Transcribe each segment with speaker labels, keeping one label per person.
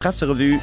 Speaker 1: Presserevue.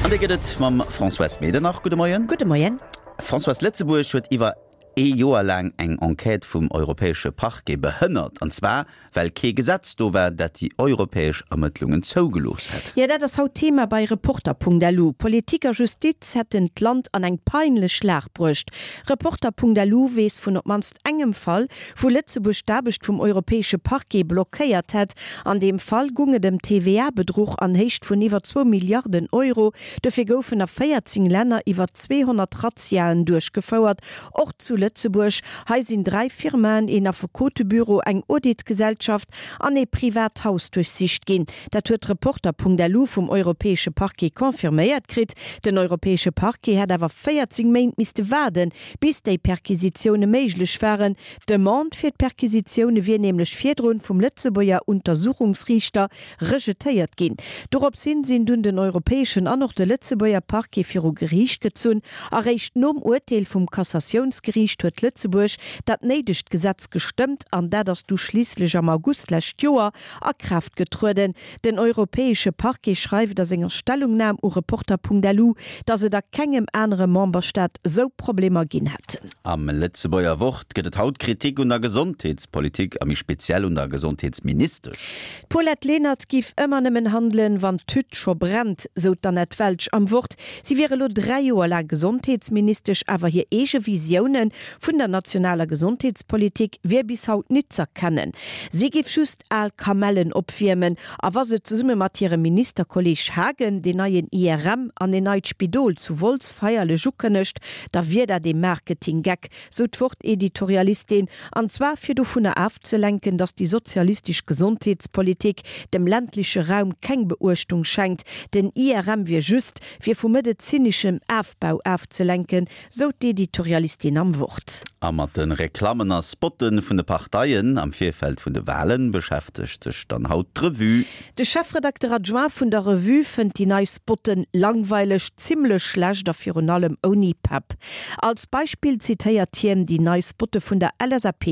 Speaker 1: An déi gëtt et mam Françoise Medernach. Gudde Moien.
Speaker 2: Gudde Moien.
Speaker 1: Françoise, Lëtzebuerg huet iwwer ee Joer laang eng Enquête vum Europäesche Parquet behënnert, an zwar well kee Gesetz do war, dat déi europäesch Ermëttlungen zougelooss hätt.
Speaker 2: Jo, dat ass haut Thema bei Reporter.lu. Politik a Justiz hätten d'Land an eng peinlech Lag bruecht. Reporter.lu weess vun op d'mannst engem Fall, wou Lëtzebuerg d'Aarbecht vum Europäesche Parquet blockéiert hätt. An deem Fall gung et ëm TVA-Bedruch an Héicht vun iwwer zwou Milliarden Euro. Dofir goufen a 14 Länner iwwer 200 Razziaen duerchgefouert, och zu Lëtzebuerg. Hei sinn dräi Firmaen, een Affekotebüro, eng Auditgesellschaft an ee privat Haus duerchsicht ginn. Dat huet Reporter.lu vum Europäesche Parquet confirméiert kritt. Den Europäesche Parquet hätt awer 14 Méint misste waarden, Bis déi Perquisitioune méiglech waren, d'Demande fir d'Perquisitioune wier nämlech virdrun vum Lëtzebuerger Untersuchungsriichter rejetéiert ginn. Dorops hin sinn dunn den europäeschen an och de Lëtzebuerger Parquet viru Geriicht gezunn. Eréischt nom Urteel vum Cassatiounsgeriicht huet Lëtzebuerg dat néidegt Gesetz gestëmmt an dat ass du schliisslech am August d'lescht Joer a Kraaft getrueden. Den europäesche Parquet schreift a senger Stellungnam u Reporter.lu, datt et a kengem anere Memberstaat sou Problemer ginn hätt.
Speaker 1: Am Lëtzebuerger Wort gëtt et haut Kritik un der Gesondheetspolitik a méi speziell un der Gesondheetsministesch.
Speaker 2: D'Paulette Lenert giff ëmmer nëmmen handelen, wann d'Hütt scho brennt, sou d'Annette Welsch am Wort. Si wier elo 3 Joer laang Gesondheetsministesch, awer hir eege Visioune vun der nationaler Gesondheetspolitik wier bis haut nit z'erkennen. Si giff just al Kamellen opwiermen a wa se zesumme mat hirem Ministerkolleg Haagen deen neien IRM an een neit Spidol zu Wolz feierlech ukënnegt, da wier dat ee Marketinggeck, sou d'Wort-Editorialistin, an zwar fir dovunner afzelenken, datt déi sozialistesch Gesondheetspolitik dem ländleche Raum keng Beuechtung schenkt. Den IRM wier just, fir vu medezineschem Afbau afzelenken, Sou d'Editorialistin am Wort.
Speaker 1: A mat de Reklammen a Spotte vun de Parteien am Virfeld vun de Walen beschäftegt sech dann haut d'Revue.
Speaker 2: De Chefredakter adjoint vun der Revue fënnt déi nei Spotten langweileg, zimmlech schlecht a virun allem ouni Pepp. Als Beispill zitéiert hien déi nei Spotte vun der LSAP.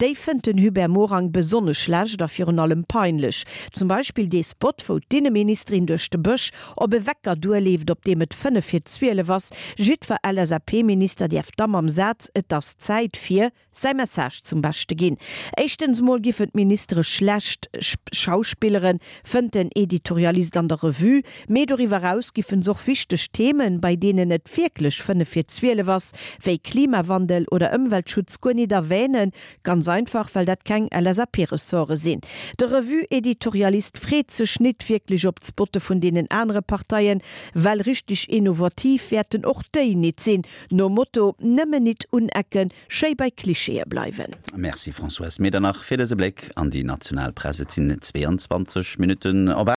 Speaker 2: Déi fënnt den Hubert Morang besonnesch schlecht a virun allem peinlech. Zum Beispill dee Spot, wou d'Inneministerin duerch de Bësch Op e Wecker duerleeft, op deem et 5 vir 12 ass. Jiddwer LSAP-Minister däerf da mam Saz Et ass Zäit fir säi Message zum Beschte ginn. Éischtens mol giffen d'Ministere schlecht schauspilleren, fënnt den Editorialist an der Revue. Mee doriwwer eraus giffen s'och wichteg Themen, bei deenen et wierklech 5 vir 12 ass, wéi Klimawandel oder Ëmweltschutz, guer nit erwänen. Ganz einfach, well dat keng LSAP-Ressorte sinn. De Revue-Editorialist freet sech nit wierklech op d'Spotte vun deenen anere Parteien, well richteg innovativ wäerten och déi nit sinn, nom Motto, nëmmen nit unecken, schéi bei Klischeeë bleiwen.
Speaker 1: Merci Françoise Medernach fir dëse Bléck an déi national Press. Et sinn 22 Minutten op.